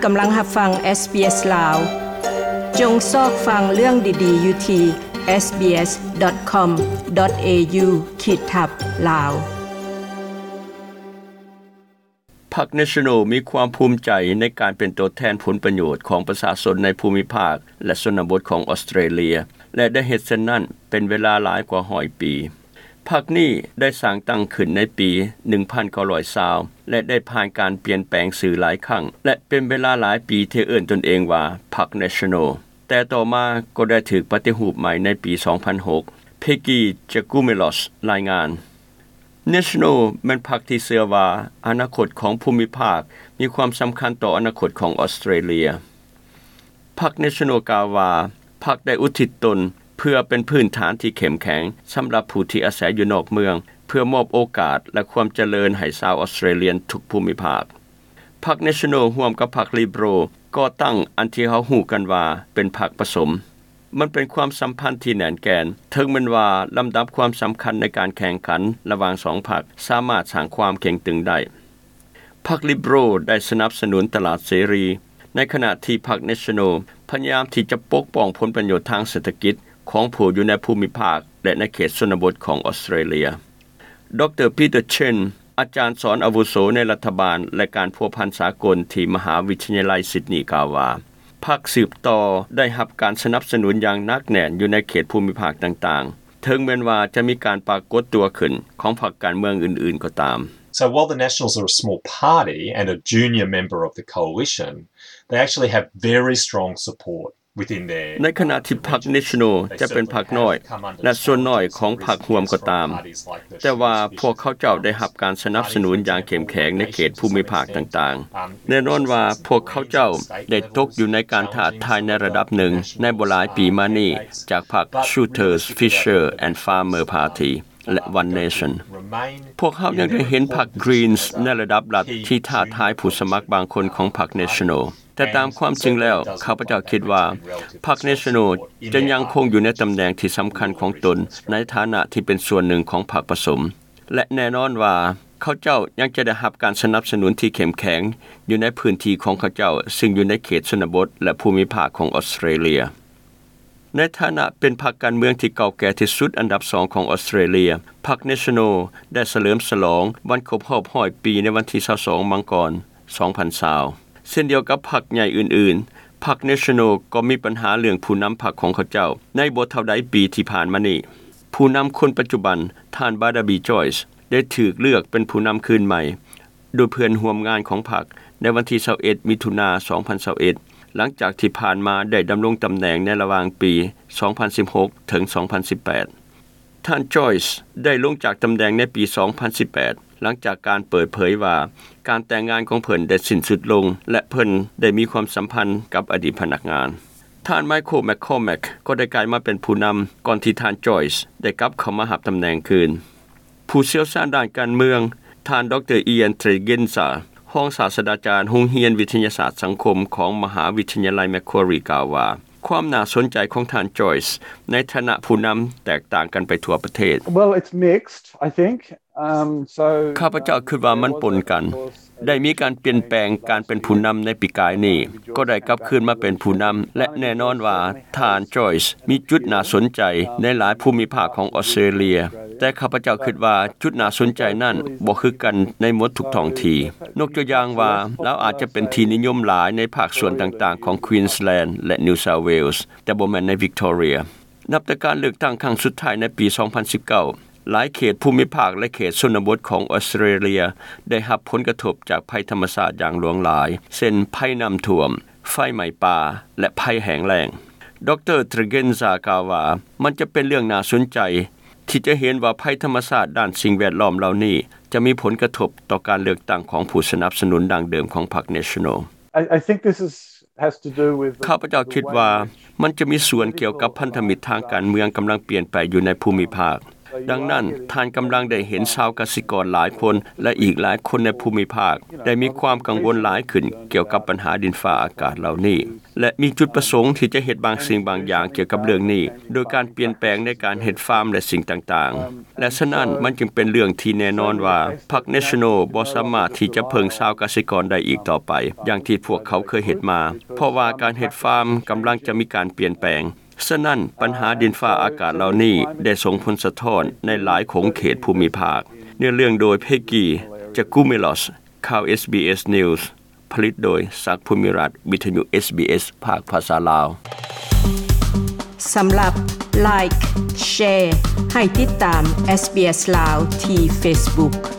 ກຳລັງຮັບຟັງ SBS ລາວ. ຈົ່ງຊອກຟັງເລື່ອງດີໆຢູ່ທີ່ SBS.com.au ຂີດທັບ ລາວ. ພັກ National ມີຄວາມພູມໃຈໃນການເປັນຕົວແທນຜົນປະໂຫຍດຂອງປະຊາຊົນໃນພູມິພາກ ແລະ ຊົນນະບົດຂອງອອສເຕຣເລຍ ແລະ ໄດ້ເຮັດເຊັ່ນນັ້ນເປັນເວລາຫຼາຍກວ່າຮ້ອຍປີ. ພັກນີ້ໄດ້ສ້າງຕັ້ງຂຶ້ນໃນປີໜຶ່ງພັນເກົ້າຮ້ອຍຊາວ ແລະ ໄດ້ຜ່ານການປ່ຽນແປງຊື່ຫຼາຍຄັ້ງ ແລະ ເປັນເວລາຫຼາຍປີທີ່ເອີ້ນຕົນເອງວ່າພັກ National, ແຕ່ຕໍ່ມາກໍໄດ້ຖືກປະຕິຮູບໃໝ່ໃນປີສອງພັນຫົກ. Peggy Giakoumelos ລາຍງານ. National ແມ່ນພັກທີ່ເຊື່ອວ່າອະນາຄົດຂອງພູມິພາກມີຄວາມສຳຄັນຕໍ່ອະນາຄົດຂອງອອສເຕຣເລຍ. ພັກ National ກ່າວວ່າ ພັກໄດ້ອຸທິດຕົນເພື່ອເປັນພື້ນຖານທີ່ເຂັ້ມແຂງສຳລັບຜູ້ທີ່ອາໄສຢູ່ນອກເມືອງ ເພື່ອມອບໂອກາດ ແລະ ຄວາມຈະເລີນໃຫ້ຊາວອອສເຕຣເລຍນທຸກພູມິພາກ. ພັກ National ຮ່ວມກັບພັກ Liberal ກໍ່ຕັ້ງອັນທີ່ເຮົາຮູ້ກັນວ່າເປັນພັກປະສົມ. ມັນເປັນຄວາມສຳພັນທີ່ແໜ້ນແກ່ນ, ເຖິງແມ່ນວ່າລຳດັບຄວາມສຳຄັນໃນການແຂ່ງຂັນລະຫວ່າງສອງພັກສາມາດສ້າງຄວາມເຄັ່ງຕຶງໄດ້. ພັກ Liberal ໄດ້ສະໜັບສະໜູນຕະຫຼາດເສລີ, ໃນຂະນະທີ່ພັກ National ພະຍາຍາມທີ່ຈະປົກປ້ອງຜົນປະໂຫຍດທາງເສດຖະກິດຂອງຜູ້ຢູ່ໃນພູມິພາກ ແລະ ໃນເຂດຊົນນະບົດຂອງອອສເຕຣເລຍ. ດຣ Peter Chen ອາຈານສອນອາວຸໂສໃນລັດຖະບານ ແລະ ການພົວພັນສາກົນທີ່ມະຫາວິທະຍາໄລ Sydney ກ່າວວ່າ ພັກສືບຕໍ່ໄດ້ຮັບການສະໜັບສະໜູນຢ່າງໜັກແໜ້ນຢູ່ໃນເຂດພູມິພາກຕ່າງໆ, ເຖິງແມ່ນວ່າຈະມີການປາກົດຕົວຂຶ້ນຂອງພັກການເມືອງອື່ນໆກໍຕາມ. So while the Nationals are a small party and a junior member of the coalition, they actually have very strong support within their ໃນຂະນະທີ່ພັກ National ຈະເປັນພັກນ້ອຍ ແລະ ສ່ວນນ້ອຍຂອງພັກຮ່ວມກໍຕາມ, ແຕ່ວ່າພວກເຂົາເຈົ້າໄດ້ຮັບການສະໜັບສະໜູນຢ່າງເຂັ້ມແຂງໃນເຂດພູມິພາກຕ່າງໆ. ແນ່ນອນວ່າພວກເຂົາເຈົ້າໄດ້ຕົກຢູ່ໃນການທ້າທາຍໃນລະດັບໜຶ່ງໃນບໍ່ຫຼາຍປີມານີ້ ຈາກພັກ Schuster, Fisher and Farmer Party ແລະ One Nation. ພວກເຮົາຍັງໄດ້ເຫັນພັກ Greens ໃນລະດັບລັດທີ່ທ້າທາຍຜູ້ສະໝັກບາງຄົນຂອງພັກ National. ແຕ່ຕາມຄວາມຈິງແລ້ວ ຂ້າພະເຈົ້າຄິດວ່າພັກ National ຈະຍັງຄົງຢູ່ໃນຕຳແໜ່ງທີ່ສຳຄັນຂອງຕົນ ໃນຖານະທີ່ເປັນສ່ວນໜຶ່ງຂອງພັກປະສົມ ແລະ ແນ່ນອນວ່າເຂົາເຈົ້າຍັງຈະໄດ້ຮັບການສະໜັບສະໜູນທີ່ເຂັ້ມແຂງຢູ່ໃນພື້ນທີ່ຂອງເຂົາເຈົ້າ ຊຶ່ງຢູ່ໃນເຂດຊົນນະບົດ ແລະ ພູມິພາກຂອງອອສເຕຣເລຍ. ໃນຖານະເປັນພັກການເມືອງທີ່ເກົ່າແກ່ທີ່ສຸດອັນດັບສອງຂອງອອສເຕຣເລຍ, ພັກ National ໄດ້ສະເຫຼີມສະຫຼອງວັນຄົບຮອບຮ້ອຍປີໃນວັນທີຊາວສອງ ມັງກອນ ສອງພັນຊາວ. ເຊັ່ນດຽວກັບພັກໃຫຍ່ອື່ນໆ, ພັກ National ກໍມີບັນຫາເລື່ອງຜູ້ນຳພັກຂອງເຂົາເຈົ້າໃນບໍ່ເທົ່າໃດປີທີ່ຜ່ານມານີ້. ຜູ້ນຳຄົນປັດຈຸບັນ, ທ່ານ Barnaby Joyce ໄດ້ຖືກເລືອກເປັນຜູ້ນຳຄືນໃໝ່ ໂດຍເພື່ອນຮ່ວມງານຂອງພັກໃນວັນທີຊາວເອັດ ມິຖຸນາ ສອງພັນຊາວເອັດ ຫຼັງຈາກທີ່ຜ່ານມາໄດ້ດຳລົງຕຳແໜ່ງໃນລະຫວ່າງປີສອງພັນສິບຫົກ ເຖິງ ສອງພັນສິບແປດ. ທ່ານ Joyce ໄດ້ລົງຈາກຕຳແໜ່ງໃນປີສອງພັນສິບແປດ ຫຼັງຈາກການເປີດເຜີຍວ່າການແຕ່ງງານຂອງເພິ່ນໄດ້ສິ້ນສຸດລົງ ແລະ ເພິ່ນໄດ້ມີຄວາມສຳພັນກັບອະດີດພະນັກງານ. ທ່ານ Michael McCormack ກໍໄດ້ກາຍມາເປັນຜູ້ນຳ ກ່ອນທີ່ທ່ານ Joyce ໄດ້ກັບເຂົ້າມາຮັບຕຳແໜ່ງຄືນ. ຜູ້ຊ່ຽວຊານດ້ານການເມືອງ, ທ່ານ ດຣ Ian Tregenza ຮອງສາດສະດາຈານໂຮງຮຽນວິທະຍາສາດສັງຄົມຂອງມະຫາວິທະຍາໄລ Macquarie ກ່າວວ່າ ຄວາມໜ້າສົນໃຈຂອງທ່ານ Joyce ໃນຖານະຜູ້ນຳແຕກຕ່າງກັນໄປທົ່ວປະເທດ. Well, it's mixed, I think. Um, so, ຂ້າພະເຈົ້າຄິດວ່າມັນປົນກັນ. ໄດ້ມີການປ່ຽນແປງການເປັນຜູ້ນຳໃນປີກາຍນີ້, ກໍໄດ້ກັບຄືນມາເປັນຜູ້ນຳ ແລະ ແນ່ນອນວ່າທ່ານ Joyce ມີຈຸດໜ້າສົນໃຈໃນຫຼາຍພູມິພາກຂອງອອສເຕຣເລຍ, ແຕ່ຂ້າພະເຈົ້າຄິດວ່າຈຸດໜ້າສົນໃຈນັ້ນບໍ່ຄືກັນໃນໝົດທຸກທ້ອງທີ່. ຍົກຕົວຢ່າງວ່າ ລາວອາດຈະເປັນທີ່ນິຍົມຫຼາຍໃນພາກສ່ວນຕ່າງໆຂອງ Queensland ແລະ New South Wales, ແຕ່ບໍ່ແມ່ນໃນ Victoria. ນັບແຕ່ການເລືອກຕັ້ງຄັ້ງສຸດທ້າຍໃນປີສອງພັນສິບເກົ້າ, ຫຼາຍເຂດພູມິພາກ ແລະ ເຂດຊົນນະບົດຂອງອອສເຕຣເລຍໄດ້ຮັບຜົນກະທົບຈາກໄພທຳມະຊາດຢ່າງຫຼວງຫຼາຍ, ເຊັ່ນ ໄພນ້ຳຖ້ວມ, ໄຟໄໝ້ປ່າ ແລະ ໄພແຫ້ງແລ້ງ. ດຣ Tregenza ກ່າວວ່າ ມັນຈະເປັນເລື່ອງໜ້າສົນໃຈທີ່ຈະເຫັນວ່າໄພທຳມະຊາດດ້ານສິ່ງແວດລ້ອມເຫຼົ່ານີ້ຈະມີຜົນກະທົບຕໍ່ການເລືອກຕັ້ງຂອງຜູ້ສະໜັບສະໜູນດັ້ງເດີມຂອງພັກ National. I, I think this is, has to do with the, ຂ້າພະເຈົ້າຄິດວ່າ the way in which ມັນຈະມີສ່ວນກ່ຽວກັບພັນທະມິດທາງການເມືອງກຳລັງປ່ຽນໄປຢູ່ໃນພູມິພາກ. ດັ່ງນັ້ນ ທ່ານກຳລັງໄດ້ເຫັນຊາວກະສິກອນຫຼາຍຄົນ ແລະ ອີກຫຼາຍຄົນໃນພູມິພາກ ໄດ້ມີຄວາມກັງວົນຫຼາຍຂຶ້ນກ່ຽວກັບບັນຫາດິນຟ້າອາກາດເຫຼົ່ານີ້ ແລະ ມີຈຸດປະສົງທີ່ຈະເຮັດບາງສິ່ງບາງຢ່າງກ່ຽວກັບເລື່ອງນີ້ ໂດຍການປ່ຽນແປງໃນການເຮັດຟາມ ແລະ ສິ່ງຕ່າງໆ ແລະ ສະນັ້ນ ມັນຈຶ່ງເປັນເລື່ອງທີ່ແນ່ນອນວ່າ ພັກ National ບໍ່ສາມາດທີ່ຈະເພິ່ງຊາວກະສິກອນໄດ້ອີກຕໍ່ໄປ ຢ່າງທີ່ພວກເຂົາເຄີຍເຮັດມາ ເພາະວ່າການເຮັດຟາມກຳລັງຈະມີການປ່ຽນແປງ. ສະນັ້ນ ບັນຫາດິນຟ້າອາກາດເຫຼົ່ານີ້ໄດ້ສົ່ງຜົນສະທ້ອນໃນຫຼາຍຂົງເຂດພູມິພາກ. ເນື້ອເລື່ອງໂດຍ Peggy Giakoumelos ຂ່າວ SBS News ຜະລິດໂດຍ ສັກ ພູມິລັດ ວິທະຍຸ SBS ພາກພາສາລາວ. ສຳລັບ Like Share ໃຫ້ຕິດຕາມ SBS ລາວທີ່ Facebook.